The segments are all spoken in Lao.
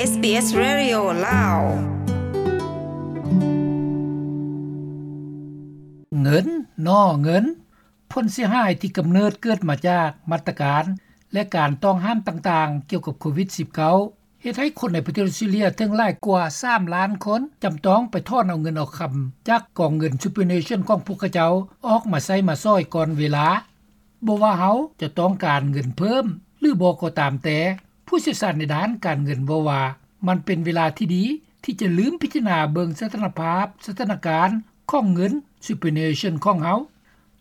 ເອສບີເອສ Radio ລາວ. ເງິນ ໜໍ່ເງິນ ຜົນເສຍຫາຍທີ່ກຳເນີດເກີດມາຈາກມາດຕະການ ແລະ ການຕ້ອງຫ້າມຕ່າງໆ ກ່ຽວກັບໂຄວິດສິບເກົ້າ ເຮັດໃຫ້ຄົນໃນປະເທດອອສເຕຣເລຍເຖິງຫຼາຍກວ່າສາມລ້ານຄົນ ຈຳຕ້ອງໄປຖອນເອົາເງິນເອົາຄຳຈາກກອງເງິນ Superannuation ຂອງພວກເຂົາເຈົ້າ ອອກມາໃຊ້ມາສອຍກ່ອນເວລາ. ບໍ່ວ່າເຮົາຈະຕ້ອງການເງິນເພີ່ມ ຫຼື ບໍ່ກໍຕາມແຕ່, ຜູ້ຊ່ຽວຊານໃນດ້ານການເງິນເວົ້າວ່າ ມັນເປັນເວລາທີ່ດີທີ່ຈະລືມພິຈາລະນາເບິ່ງສະຖານະພາບ, ສະຖານະການຂອງເງິນ Superannuation ຂອງເຮົາ.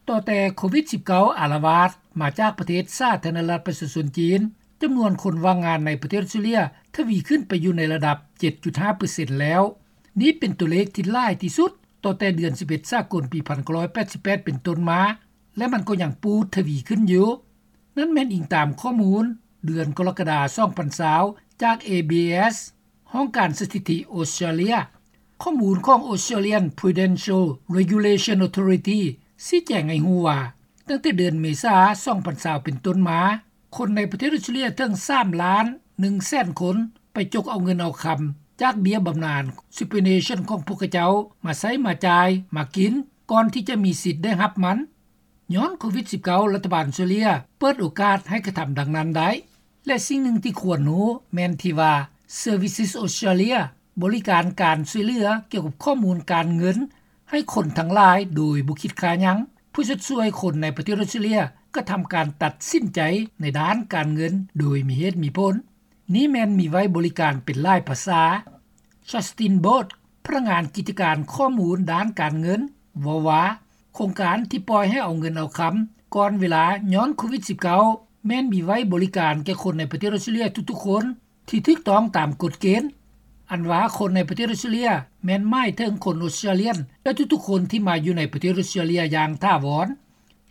ຕໍ່ແຕ່ໂຄວິດສິບເກົ້າ ອາລະວາດມາຈາກປະເທດສາທາລະນະລັດປະຊາຊົນຈີນ, ຈຳນວນຄົນວ່າງງານໃນປະເທດອອສເຕຣເລຍທະວີຂຶ້ນໄປຢູ່ໃນລະດັບ ເຈັດຈຸດຫ້າເປີເຊັນແລ້ວ. ນີ້ເປັນຕົວເລກທີ່ຫຼາຍທີ່ສຸດຕັ້ງແຕ່ເດືອນສິບເອັດສາກົນປີພັນເກົ້າຮ້ອຍແປດສິບແປດເປັນຕົ້ນມາ ແລະ ມັນກໍຍັງປູດທະວີຂຶ້ນຢູ່. ນັ້ນແມ່ນອີງຕາມຂໍ້ມູນເດືອນກໍລະກະດາ ສອງພັນຊາວ ຈາກ ເອ ບີ ເອສ ຫ້ອງການສະຖິຕິອອສເຕຣເລຍ. ຂໍ້ມູນຂອງ Australian Prudential Regulation Authority ຊີ້ແຈງໃຫ້ຮູ້ວ່າ ຕັ້ງແຕ່ເດືອນເມສາ ສອງພັນຊາວ ເປັນຕົ້ນມາ, ຄົນໃນປະເທດອອສເຕຣເລຍເຖິງສາມລ້ານໜຶ່ງແສນຄົນ ໄປຈົກເອົາເງິນເອົາຄຳຈາກເບ້ຍບຳນານ Superannuation ຂອງພວກເຂົາເຈົ້າມາໃຊ້ມາຈ່າຍມາກິນ ກ່ອນທີ່ຈະມີສິດໄດ້ຮັບມັນ. ຍ້ອນໂຄວິດສິບເກົ້າ ລັດຖະບານອອສເຕຣເລຍເປີດໂອກາດໃຫ້ກະທຳດັ່ງນັ້ນໄດ້ ແລະ ສິ່ງໜຶ່ງທີ່ຄວນຮູ້ແມ່ນທີ່ວ່າ Services Australia ບໍລິການການຊ່ວຍເຫຼືອກ່ຽວກັບຂໍ້ມູນການເງິນໃຫ້ຄົນທັງຫຼາຍໂດຍບໍ່ຄິດຄ່າຫຍັງ ເພື່ອຊົດຊ່ວຍຄົນໃນປະເທດອອສເຕຣເລຍກະທຳການຕັດສິນໃຈໃນດ້ານການເງິນໂດຍມີເຫດມີຜົນ. ນີ້ແມ່ນມີໄວ້ບໍລິການເປັນຫຼາຍພາສາ. Justin Bot ພະນັກງານກິດຈະການຂໍ້ມູນດ້ານການເງິນ ເວົ້າວ່າ ໂຄງການທີ່ປ່ອຍໃຫ້ເອົາເງິນເອົາຄຳກ່ອນເວລາຍ້ອນໂຄວິດສິບເກົ້າ ແມ່ນມີໄວ້ບໍລິການແກ່ຄົນໃນປະເທດອອສເຕຣເລຍທຸກໆຄົນ ທີ່ຖືກຕ້ອງຕາມກົດເກນ. ອັນວ່າຄົນໃນປະເທດອອສເຕຣເລຍ ແມ່ນໝາຍເຖິງຄົນອອສເຕຣເລຍ ແລະ ທຸກໆຄົນທີ່ມາຢູ່ໃນປະເທດອອສເຕຣເລຍຢ່າງຖາວອນ.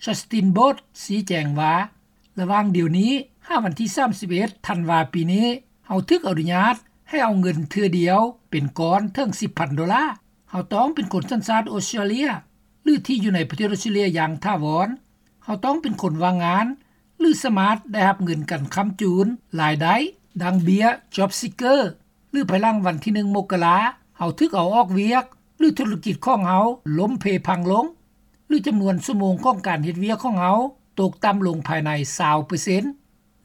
Justin Bot ຊີ້ແຈງວ່າ ລະຫວ່າງດຽວນີ້ຫາວັນທີສາມສິບເອັດ ທັນວາປີນີ້ ເຮົາຖືກອະນຸຍາດໃຫ້ເອົາເງິນເທື່ອດຽວເປັນກ້ອນເຖິງສິບພັນໂດລາ. ເຮົາຕ້ອງເປັນຄົນສັນຊາດອອສເຕຣເລຍ ຫຼື ທີ່ຢູ່ໃນປະເທດອອສເຕຣເລຍຢ່າງຖາວອນ. ເຮົາຕ້ອງເປັນຄົນວ່າງງານ ຫຼື ສາມາດໄດ້ຮັບເງິນການຄ້ຳຈູນລາຍໄດ້ ດັ່ງເບ້ຍ Job Seeker ຫຼື ພາຍຫຼັງວັນທີໜຶ່ງ ມົກກະລາ ເຮົາຖືກເອົາອອກວຽກ ຫຼື ທຸລະກິດຂອງເຮົາລົ້ມເພພັງລົງ ຫຼື ຈຳນວນຊົ່ວໂມງຂອງການເຮັດວຽກຂອງເຮົາຕົກຕ່ຳລົງພາຍໃນຊາວເປີເຊັນ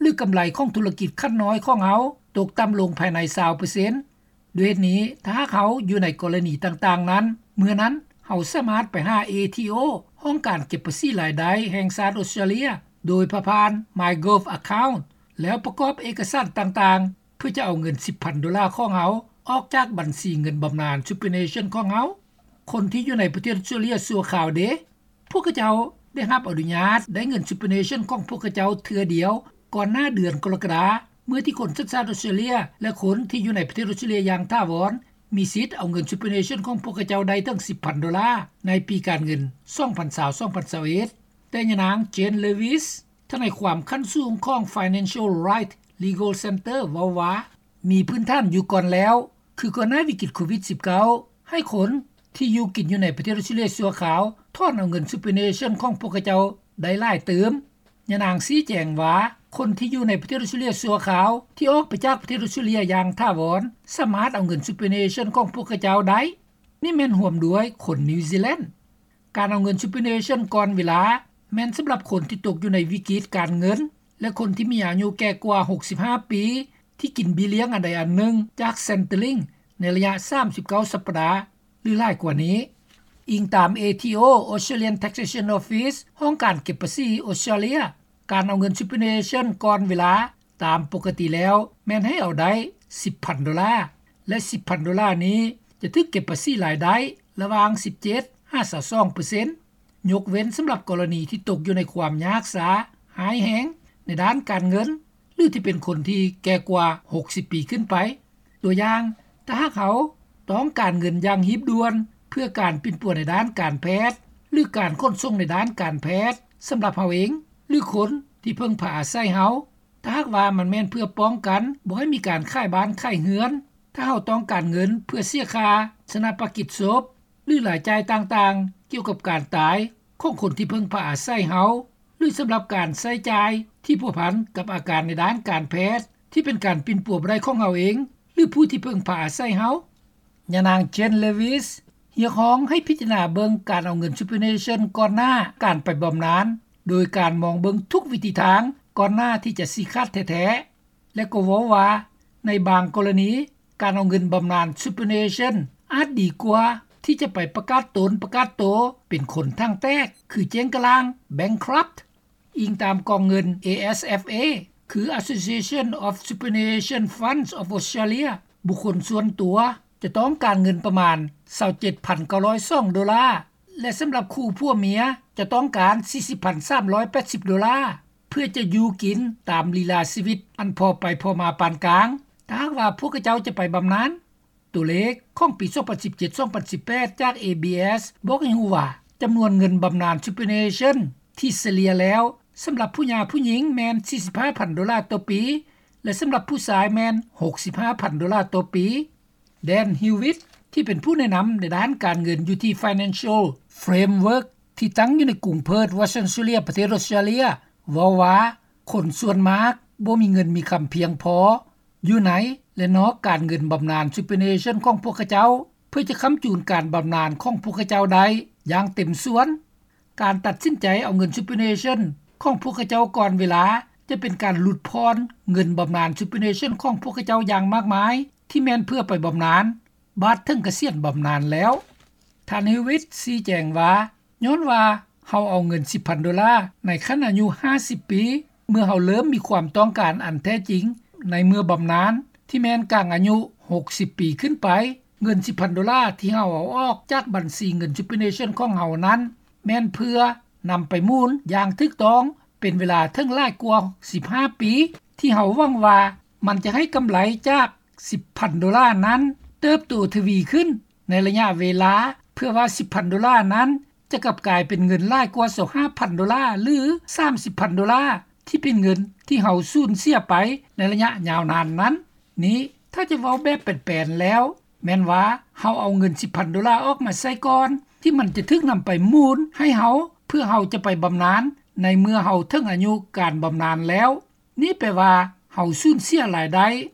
ຫຼື ກຳໄລຂອງທຸລະກິດຂັ້ນນ້ອຍຂອງເຮົາຕົກຕ່ຳລົງພາຍໃນຊາວເປີເຊັນ. ດ້ວຍເຫດນີ້ ຖ້າຫາກເຮົາຢູ່ໃນກໍລະນີຕ່າງໆນັ້ນ ເມື່ອນັ້ນເຮົາສາມາດໄປຫາ ເອທີໂອ ຫ້ອງການເກັບພາສີລາຍໄດ້ແຫ່ງຊາດອອສເຕຣເລຍ ໂດຍຜ່ານ MyGov Account ແລ້ວປະກອບເອກະສານຕ່າງໆ ເພື່ອຈະເອົາເງິນສິບພັນໂດລາຂອງເຮົາອອກຈາກບັນຊີເງິນບຳນານ Superannuation ຂອງເຮົາ. ຄົນທີ່ຢູ່ໃນປະເທດອອສເຕຣເລຍຊົ່ວຄາວເດ? ພວກເຂົາເຈົ້າໄດ້ຮັບອະນຸຍາດໄດ້ເງິນ Superannuation ຂອງພວກເຂົາເຈົ້າເທື່ອດຽວ ກ່ອນໜ້າເດືອນກໍລະກະດາ ເມື່ອທີ່ຄົນສັນຊາດອອສເຕຣເລຍ ແລະ ຄົນທີ່ຢູ່ໃນປະເທດອອສເຕຣເລຍຢ່າງຖາວອນ ມີສິດເອົາເງິນ Superannuation ຂອງພວກເຂົາເຈົ້າໄດ້ເຖິງສິບພັນໂດລາ ໃນປີການເງິນ ສອງພັນຊາວ ສອງພັນຊາວເອັດ. ແຕ່ຍານາງ Jane Lewis ທະນາຍຄວາມຂັ້ນສູງຂອງ Financial Right Legal Center ເວົ້າວ່າ ມີພື້ນຖານຢູ່ກ່ອນແລ້ວ ຄືກ່ອນໜ້າວິກິດໂຄວິດສິບເກົ້າ ໃຫ້ຄົນທີ່ຢູ່ກິນຢູ່ໃນປະເທດອອສເຕຣເລຍຊົ່ວຄາວ ຖອນເອົາເງິນ Superannuation ຂອງພວກເຂົາເຈົ້າໄດ້ຫຼາຍຕື່ມ. ຍານາງຊີ້ແຈງວ່າ ຄົນທີ່ຢູ່ໃນປະເທດອອສເຕຣເລຍຊົ່ວຄາວ ທີ່ອອກໄປຈາກປະເທດອອສເຕຣເລຍຢ່າງຖາວອນ ສາມາດເອົາເງິນ Superannuation ຂອງພວກເຂົາເຈົ້າໄດ້. ນີ້ແມ່ນຮວມດ້ວຍຄົນນິວຊີແລນ. ການເອົາເງິນ Superannuation ກ່ອນເວລາ ແມ່ນສຳລັບຄົນທີ່ຕົກຢູ່ໃນວິກິດການເງິນ ແລະ ຄົນທີ່ມີອາຍຸແກ່ກວ່າຫົກສິບຫ້າປີ ທີ່ກິນເບ້ຍລ້ຽງອັນໃດອັນໜຶ່ງຈາກ Centrelink ໃນໄລຍະສາມສິບເກົ້າສັບປະດາ ຫຼື ຫຼາຍກວ່ານີ້. ອີງຕາມ ເອທີໂອ Australian Taxation Office ຫ້ອງການເກັບພາສີອອສເຕຣເລຍ, ການເອົາເງິນ Superannuation ກ່ອນເວລາ ຕາມປົກກະຕິແລ້ວແມ່ນໃຫ້ເອົາໄດ້ສິບພັນໂດລາ ແລະ ສິບພັນໂດລານີ້ຈະຖືກເກັບພາສີລາຍໄດ້ລະຫວ່າງສິບເຈັດຫາຊາວສອງເປີເຊັນ ຍົກເວັ້ນສຳລັບກໍລະນີທີ່ຕົກຢູ່ໃນຄວາມຍາກຊາຮ້າຍແຮງໃນດ້ານການເງິນ ຫຼື ທີ່ເປັນຄົນທີ່ແກ່ກວ່າຫົກສິບປີຂຶ້ນໄປ. ຕົວຢ່າງ, ຖ້າຫາກເຮົາຕ້ອງການເງິນຢ່າງຮີບດ່ວນເພື່ອການປິ່ນປົວໃນດ້ານການແພດ ຫຼື ການຂົນສົ່ງໃນດ້ານການແພດສຳລັບເຮົາເອງ ຫຼື ຄົນທີ່ເພິ່ງພາອາໄສເຮົາ, ຖ້າຫາກວ່າມັນແມ່ນເພື່ອປ້ອງກັນບໍ່ໃຫ້ມີການຂາຍບ້ານຂາຍເຮືອນ, ຖ້າເຮົາຕ້ອງການເງິນເພື່ອເສຍຄ່າຊາປະນະກິດສົບ ຫຼື ລາຍຈ່າຍຕ່າງໆກ່ຽວກັບການຕາຍຂອງຄົນທີ່ເພິ່ງພາອາໄສເຮົາ ຫຼື ສຳລັບການໃຊ້ຈ່າຍທີ່ພົວພັນກັບອາການໃນດ້ານການແພດທີ່ເປັນການປິ່ນປົວບໍ່ໄດ້ຂອງເຮົາເອງ, ຫຼືຜູ້ທີ່ເພິ່ງພາອາໄສເຮົາ. ຍານາງ Jane Lewis ຮຽກຮ້ອງໃຫ້ພິຈາລະນາເບິ່ງການເອົາເງິນ Superannuation ກ່ອນໜ້າການໄປບຳນານ ໂດຍການມອງເບິ່ງທຸກວິທີທາງກ່ອນໜ້າທີ່ຈະຊີ້ຂາດແທ້ໆ ແລະກໍເວົ້າວ່າ ໃນບາງກໍລະນີ ການເອົາເງິນບຳນານ Superannuation ອາດດີກວ່າທີ່ຈະໄປປະກາດຕົນປະກາດໂຕເປັນຄົນຖັງແຕກ ຄືເຈ້ງກະລ່າງ bankrupt. ອີງຕາມກອງເງິນ ASFA ຄື Association of Superannuation Funds of Australia ບຸກຄົນສ່ວນຕົວຈະຕ້ອງການເງິນປະມານ ຊາວເຈັດພັນເກົ້າຮ້ອຍສອງໂດລາ ແລະສຳລັບຄູ່ຜົວເມຍຈະຕ້ອງການ ສີ່ສິບພັນສາມຮ້ອຍແປດສິບໂດລາ ເພື່ອຈະຢູ່ກິນຕາມລີລາຊີວິດອັນພໍໄປພໍມາປານກາງ ຖ້າຫາກວ່າພວກເຂົາເຈົ້າຈະໄປບຳນານ. ຕົວເລກຂອງປີສອງພັນສິບເຈັດ ສອງພັນສິບແປດ ຈາກ ABS ບອກໃຫ້ຮູ້ວ່າ ຈຳນວນເງິນບຳນານ Superannuation ທີ່ສະເລ່ຍແລ້ວ ສຳລັບຜູ້ຫຍ່າຜູ້ຍິງແມ່ນ ສີ່ສິບຫ້າພັນໂດລາຕໍ່ປີ ແລະສຳລັບຜູ້ຊາຍແມ່ນ ຫົກສິບຫ້າພັນໂດລາຕໍ່ປີ. Dan Hewitt ທີ່ເປັນຜູ້ແນະນຳໃນດ້ານການເງິນຢູ່ທີ່ Financial Framework ທີ່ຕັ້ງຢູ່ໃນກຸງເພີດ Western Australia ປະເທດອອສເຕຣເລັຍ ເວົ້າວ່າ ຄົນສ່ວນມາກບໍ່ມີເງິນມີຄຳພຽງພໍ ຢູ່ໃນ ແລະນອກການເງິນບຳນານ Superannuation ຂອງພວກເຂົາເຈົ້າ ເພື່ອຈະຄ້ຳຈູນການບຳນານຂອງພວກເຂົາເຈົ້າໄດ້ຢ່າງເຕັມສ່ວນ. ການຕັດສິນໃຈເອົາເງິນ Superannuation ຂອງພວກເຂົາເຈົ້າກ່ອນເວລາ ຈະເປັນການຫຼຸດຜ່ອນເງິນບຳນານ Superannuation ຂອງພວກເຂົາເຈົ້າຢ່າງມາກມາຍ ທີ່ແມ່ນເພື່ອໄປບຳນານ ບາດເຖິງກະສຽນບຳນານແລ້ວ. ທ່ານ Hewitt ຊີ້ແຈງວ່າ ຍ້ອນວ່າເຮົາເອົາເງິນ ສິບພັນໂດລາ ໃນຂັ້ນອາຍຸ ຫ້າສິບປີ ເມື່ອເຮົາເລີ່ມມີຄວາມຕ້ອງການອັນແທ້ຈິງ ໃນເມື່ອບຳນານ ທີ່ແມ່ນກາງອາຍຸ ຫົກສິບປີຂຶ້ນໄປ, ເງິນ ສິບພັນໂດລາ ທີ່ເຮົາເອົາອອກຈາກບັນຊີເງິນ Superannuation ຂອງເຮົານັ້ນ ແມ່ນເພື່ອນຳໄປໝູນຢ່າງຖືກຕ້ອງ ເປັນເວລາເຖິງຫຼາຍກວ່າ ສິບຫ້າປີ ທີ່ເຮົາຫວັງວ່າມັນຈະໃຫ້ກຳໄລຈາກ ສິບພັນໂດລານັ້ນ ເຕີບໂຕທະວີຂຶ້ນໃນໄລຍະເວລາ ເພື່ອວ່າ ສິບພັນໂດລານັ້ນ ຈະກັບກາຍເປັນເງິນຫຼາຍກວ່າ ຊາວຫ້າພັນໂດລາ ຫຼື ສາມສິບພັນໂດລາ ທີ່ເປັນເງິນທີ່ເຮົາສູນເສຍໄປໃນໄລຍະຍາວນານນັ້ນ. ນີ້ ຖ້າຈະເວົ້າແບບແປນໆແລ້ວ ແມ່ນວ່າເຮົາເອົາເງິນ ສິບພັນໂດລາ ອອກມາໃຊ້ກ່ອນ ທີ່ມັນຈະຖືກນຳໄປໝູນໃຫ້ເຮົາ ເພື່ອເຮົາຈະໄປບຳນານ ໃນເມື່ອເຮົາເຖິງອາຍຸການບຳນານແລ້ວ. ນີ້ແປວ່າເຮົາສູນເສຍລາຍໄດ້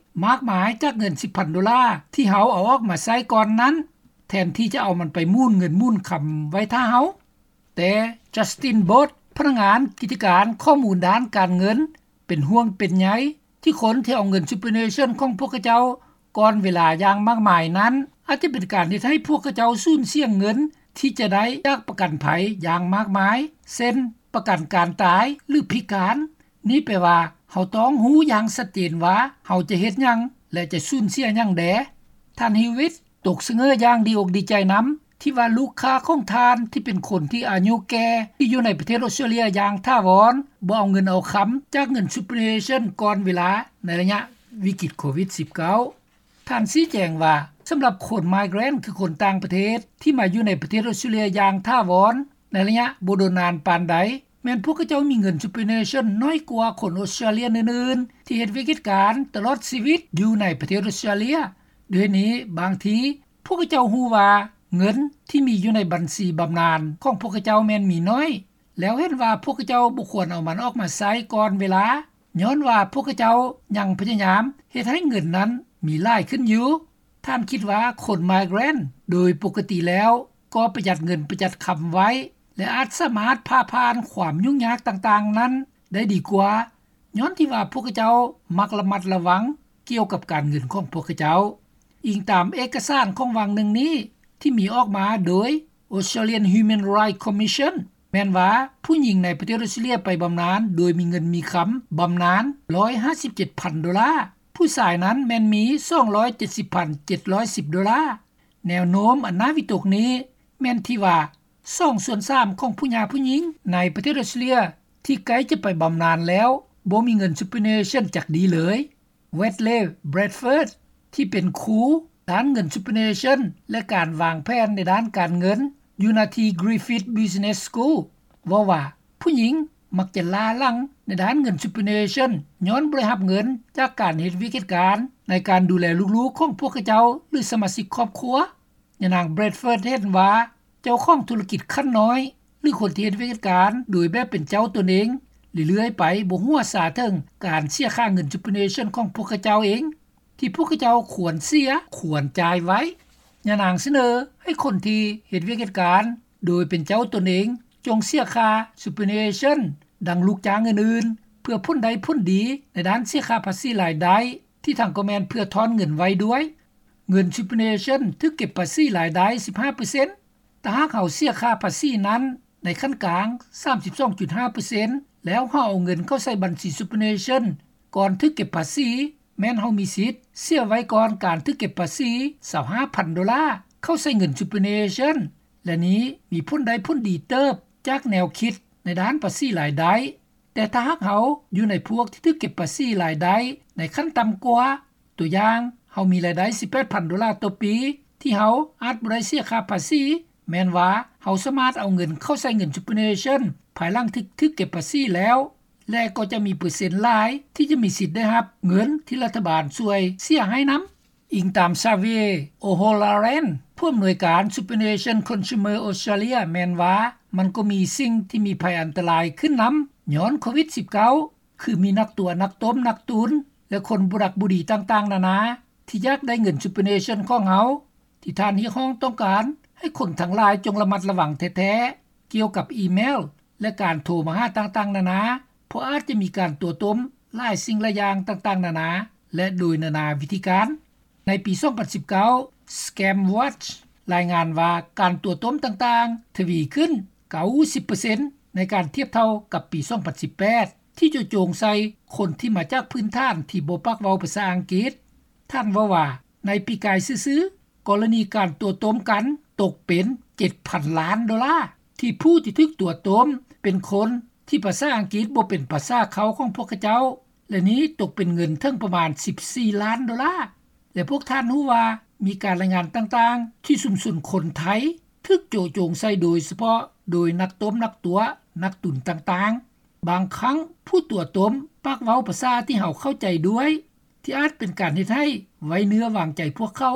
ມາກມາຍຈາກເງິນ ສິບພັນໂດລາ ທີ່ເຮົາເອົາອອກມາໃຊ້ກ່ອນນັ້ນ ແທນທີ່ຈະເອົາມັນໄປໝູນເງິນໝູນຄຳໄວ້ຖ້າເຮົາ. ແຕ່ Justin Bott ພະນັກງານກິດຈະການຂໍ້ມູນດ້ານການເງິນ ເປັນຫ່ວງເປັນໃຍ ທີ່ຄົນທີ່ເອົາເງິນ Superannuation ຂອງພວກເຂົາເຈົ້າກ່ອນເວລາຢ່າງມາກມາຍນັ້ນ ອາດຈະເປັນການເຮັດໃຫ້ພວກເຂົາເຈົ້າສູນເສຍເງິນທີ່ຈະໄດ້ຈາກປະກັນໄພຢ່າງມາກມາຍ ເຊັ່ນ ປະກັນການຕາຍ ຫຼື ພິການ. ນີ້ແປວ່າເຮົາຕ້ອງຮູ້ຢ່າງຊັດເຈນວ່າເຮົາຈະເຮັດຫຍັງ ແລະ ຈະສູນເສຍຫຍັງແດ່. ທ່ານ Hewitt ຕົກສະເຫງີຢ່າງດີອົກດີໃຈນຳ ທີ່ວ່າລູກຄ້າຂອງທ່ານທີ່ເປັນຄົນທີ່ອາຍຸແກ່ ທີ່ຢູ່ໃນປະເທດອອສເຕຣເລັຍຢ່າງຖາວອນ ບໍ່ເອົາເງິນເອົາຄຳຈາກເງິນ Superannuation ກ່ອນເວລາໃນໄລຍະວິກິດໂຄວິດສິບເກົ້າ. ທ່ານຊີ້ແຈງວ່າ ສຳລັບຄົນ migrant ຄືຄົນຕ່າງປະເທດ ທີ່ມາຢູ່ໃນປະເທດອອສເຕຣເລັຍຢ່າງຖາວອນ ໃນໄລຍະບໍ່ດົນນານປານໃດ ແມ່ນພວກເຂົາເຈົ້າມີເງິນ Superannuation ໜ້ອຍກວ່າຄົນອອສເຕຣເລັຍອື່ນໆ ທີ່ເຮັດວຽກເຮັດການຕະຫຼອດຊີວິດຢູ່ໃນປະເທດອອສເຕຣເລັຍ. ດ້ວຍນີ້ ບາງທີພວກເຂົາເຈົ້າຮູ້ວ່າເງິນທີ່ມີຢູ່ໃນບັນຊີບຳນານຂອງພວກເຂົາເຈົ້າແມ່ນມີໜ້ອຍ ແລ້ວເຫັນວ່າພວກເຂົາເຈົ້າບໍ່ຄວນເອົາມັນອອກມາໃຊ້ກ່ອນເວລາ ຍ້ອນວ່າພວກເຂົາເຈົ້າຍັງພະຍາຍາມເຮັດໃຫ້ເງິນນັ້ນມີຫຼາຍຂຶ້ນຢູ່. ທ່ານຄິດວ່າຄົນ migrant ໂດຍປົກກະຕິແລ້ວກໍປະຢັດເງິນປະຢັດຄຳໄວ້ ແລະ ອາດສາມາດຜ່າຜ່ານຄວາມຫຍຸ້ງຍາກຕ່າງໆນັ້ນໄດ້ດີກວ່າ ຍ້ອນທີ່ວ່າພວກເຂົາເຈົ້າມັກລະມັດລະວັງກ່ຽວກັບການເງິນຂອງພວກເຂົາເຈົ້າ. ອີງຕາມເອກະສານຂອງວັງໜຶ່ງນີ້ ທີ່ມີອອກມາໂດຍ Australian Human Rights Commission ແມ່ນວ່າຜູ້ຍິງໃນປະເທດອອສເຕຣເລັຍໄປບຳນານໂດຍມີເງິນມີຄຳບຳນານ ໜຶ່ງຮ້ອຍຫ້າສິບເຈັດພັນໂດລາ, ຜູ້ຊາຍນັ້ນແມ່ນມີ ສອງຮ້ອຍເຈັດສິບພັນເຈັດຮ້ອຍສິບໂດລາ. ແນວໂນ້ມອັນໜ້າວິຕົກນີ້ແມ່ນທີ່ວ່າ ສອງສ່ວນສາມຂອງຜູ້ຫຍ່າຜູ້ຍິງໃນປະເທດອອສເຕຣເລັຍທີ່ໃກ້ຈະໄປບຳນານແລ້ວ ບໍ່ມີເງິນ Superannuation ຈັກດີເລີຍ. Wedley Bradford ທີ່ເປັນຄູດ້ານເງິນ Superannuation ແລະ ການວາງແຜນໃນດ້ານການເງິນ ຢູ່ນະທີ່ Griffith Business School ເວົ້າວ່າ ຜູ້ຍິງມັກຈະລ້າຫຼັງໃນດ້ານເງິນ Superannuation ຍ້ອນບໍ່ໄດ້ຮັບເງິນຈາກການເຮັດວຽກເຮັດການ ໃນການດູແລລູກໆຂອງພວກເຂົາເຈົ້າ ຫຼື ສະມາຊິກຄອບຄົວ. ຍານາງ Bradford ເຫັນວ່າ ເຈົ້າຂອງທຸລະກິດຂັ້ນນ້ອຍ ຫຼື ຄົນທີ່ເຮັດວຽກເຮັດການໂດຍແບບເປັນເຈົ້າຕົນເອງ ເລື້ອຍໆໄປບໍ່ຮູ້ວ່າຊາເຖິງການເສຍຄ່າເງິນ Superannuation ຂອງພວກເຂົາເຈົ້າເອງ. ທີ່ພວກເຂົາເຈົ້າຄວນເສຍ, ຄວນຈ່າຍໄວ້. ຍານາງສະເໜີໃຫ້ຄົນທີ່ເຮັດວຽກເຮັດການໂດຍເປັນເຈົ້າຕົນເອງ ຈົ່ງເສຍຄ່າ superannuation ດັ່ງລູກຈ້າງອື່ນໆ ເພື່ອຜົນໄດ້ຜົນດີໃນດ້ານເສຍຄ່າພາສີລາຍໄດ້ ທີ່ທາງກໍແມ່ນເພື່ອຖອນເງິນໄວ້ດ້ວຍ. ເງິນ superannuation ຖືກເກັບພາສີລາຍໄດ້ ສິບຫ້າເປີເຊັນ. ຖ້າຫາກເຮົາເສຍຄ່າພາສີນັ້ນໃນຂັ້ນກາງ ສາມສິບສອງຈຸດຫ້າເປີເຊັນ ແລ້ວເຮົາເອົາເງິນເຂົ້າໃສ່ບັນຊີ superannuation ກ່ອນຖືກເກັບພາສີ, ແມ່ນເຮົາມີສິດເສຍໄວ້ກ່ອນການຖືກເກັບພາສີ ຊາວຫ້າພັນໂດລາ ເຂົ້າໃສ່ເງິນ superannuation ແລະນີ້ມີຜົນໄດ້ຜົນດີເຕີບຈາກແນວຄິດໃນດ້ານພາສີລາຍໄດ້. ແຕ່ຖ້າຫາກເຮົາຢູ່ໃນພວກທີ່ຖືກເກັບພາສີລາຍໄດ້ໃນຂັ້ນຕ່ຳກວ່າ, ຕົວຢ່າງ, ເຮົາມີລາຍໄດ້ ສິບແປດພັນໂດລາຕໍ່ປີ ທີ່ເຮົາອາດບໍ່ໄດ້ເສຍຄ່າພາສີ, ແມ່ນວ່າເຮົາສາມາດເອົາເງິນເຂົ້າໃສ່ເງິນ superannuation ພາຍຫຼັງທີ່ຖືກເກັບພາສີແລ້ວ ແລະກໍຈະມີເປີເຊັນຫຼາຍທີ່ຈະມີສິດໄດ້ຮັບເງິນທີ່ລັດຖະບານຊ່ວຍເສຍໃຫ້ນຳ. ອີງຕາມ Xavier O'Halloran ຜູ້ອຳນວຍການ Superannuation Consumer Australia ແມ່ນວ່າ ມັນກໍມີສິ່ງທີ່ມີໄພອັນຕະລາຍຂຶ້ນນຳ ຍ້ອນໂຄວິດສິບເກົ້າ ຄືມີນັກຕົວະ, ນັກຕົ້ມ, ນັກຕຸນ ແລະຄົນບໍ່ດັກບໍ່ດີຕ່າງໆນານາ ທີ່ຢາກໄດ້ເງິນ superannuation ຂອງເຮົາ ທີ່ທ່ານຮຽກຮ້ອງຕ້ອງການໃຫ້ຄົນທັງຫຼາຍຈົ່ງລະມັດລະວັງແທ້ໆ ກ່ຽວກັບອີເມວ ແລະການໂທມາຫາຕ່າງໆນານາ ເພາະອາດຈະມີການຕົວະຕົ້ມຫຼາຍສິ່ງຫຼາຍຢ່າງຕ່າງໆນານາ ແລະໂດຍນານາວິທີການ. ໃນປີສອງພັນສິບເກົ້າ Scam Watch ລາຍງານວ່າການຕົວະຕົ້ມຕ່າງໆທະວີຂຶ້ນ ເກົ້າສິບເປີເຊັນ ໃນການທຽບເທົ່າກັບປີສອງພັນສິບແປດ ທີ່ໂຈະໂຈງໃສ່ຄົນທີ່ມາຈາກພື້ນຖານທີ່ບໍ່ປາກເວົ້າພາສາອັງກິດ. ທ່ານເວົ້າວ່າ ໃນປີກາຍຊື່ໆ ກໍລະນີການຕົວະຕົ້ມກັນຕົກເປັນ ເຈັດພັນລ້ານໂດລາ ທີ່ຜູ້ທີ່ຖືກຕົວະຕົ້ມເປັນຄົນທີ່ພາສາອັງກິດບໍ່ເປັນພາສາເຄົ້າຂອງພວກເຂົາເຈົ້າ ແລະນີ້ຕົກເປັນເງິນເຖິງປະມານ ສິບສີ່ລ້ານໂດລາ. ແລະພວກທ່ານຮູ້ວ່າ ມີການລາຍງານຕ່າງໆ ທີ່ຊຸມຊົນຄົນໄທຖືກໂຈະໂຈງໃສ່ໂດຍສະເພາະໂດຍນັກຕົ້ມ, ນັກຕົວະ, ນັກຕຸນຕ່າງໆ. ບາງຄັ້ງຜູ້ຕົວະຕົ້ມປາກເວົ້າພາສາທີ່ເຮົາເຂົ້າໃຈດ້ວຍ ທີ່ອາດເປັນການເຮັດໃຫ້ໄວ້ເນື້ອວາງໃຈພວກເຂົາ.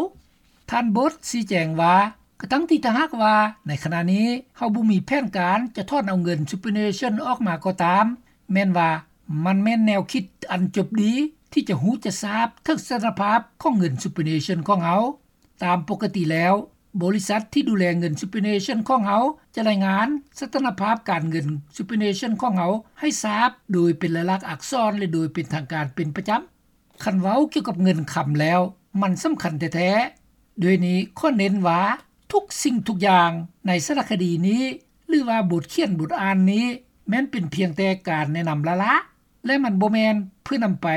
ທ່ານ Bott ຊີ້ແຈງວ່າ ກະທັງທີ່ຖ້າຫາກວ່າໃນຂະນະນີ້ເຮົາບໍ່ມີແຜນການຈະຖອນເອົາເງິນ superannuation ອອກມາກໍຕາມ, ແມ່ນວ່າມັນແມ່ນແນວຄິດອັນຈົບດີທີ່ຈະຮູ້ຈະຊາບເຖິງສະຖານະພາບຂອງເງິນ superannuation ຂອງເຮົາ. ຕາມປົກກະຕິແລ້ວ, ບໍລິສັດທີ່ດູແລເງິນ superannuation ຂອງເຮົາຈະລາຍງານສະຖານະພາບການເງິນ superannuation ຂອງເຮົາໃຫ້ຊາບໂດຍເປັນລາຍລັກອັກສອນ ແລະ ໂດຍເປັນທາງການເປັນປະຈຳ. ຄັນເວົ້າກ່ຽວກັບເງິນຄຳແລ້ວ ມັນສຳຄັນແທ້ໆ. ດ້ວຍນີ້ຂໍເນັ້ນວ່າ ທຸກສິ່ງທຸກຢ່າງໃນສາລະຄະດີນີ້ ຫຼືວ່າບົດຂຽນບົດອ່ານນີ້ ແມ່ນເປັນພຽງແຕ່ການແນະນຳລ້າໆ ແລະ ມັນບໍ່ແມ່ນເພື່ອນຳໄປ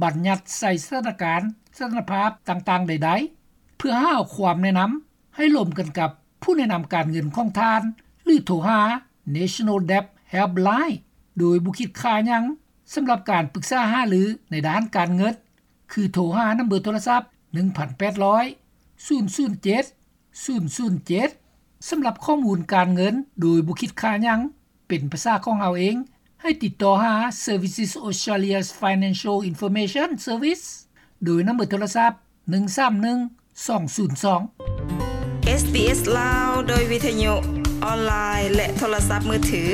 ບັນຍັດໃສ່ສະຖານະການ, ສະຖານະພາບຕ່າງໆໃດໆ ເພື່ອຫາເອົາຄວາມແນະນຳໃຫ້ລົມກັນກັບຜູ້ແນະນຳການເງິນຂອງທ່ານ ຫຼື ໂທຫາ National Debt Helpline ໂດຍບໍ່ຄິດຄ່າຫຍັງ ສຳລັບການປຶກສາຫາລືໃນດ້ານການເງິນ ຄືໂທຫານຳເບີໂທລະສັບ ໜຶ່ງພັນແປດຮ້ອຍ ສູນສູນເຈັດ ສູນສູນເຈັດ ສຳລັບຂໍ້ມູນການເງິນໂດຍບໍ່ຄິດຄ່າຫຍັງ ເປັນພາສາຂອງເຮົາເອງ ໃຫ້ຕິດຕໍ່ຫາ Services Australia's Financial Information Service ໂດຍນຳເບີໂທລະສັບ ໜຶ່ງສາມໜຶ່ງ ສອງສູນສອງ. ເອສບີເອສ ລາວ ໂດຍວິທະຍຸ ອອນລາຍ ແລະ ໂທລະສັບມືຖື.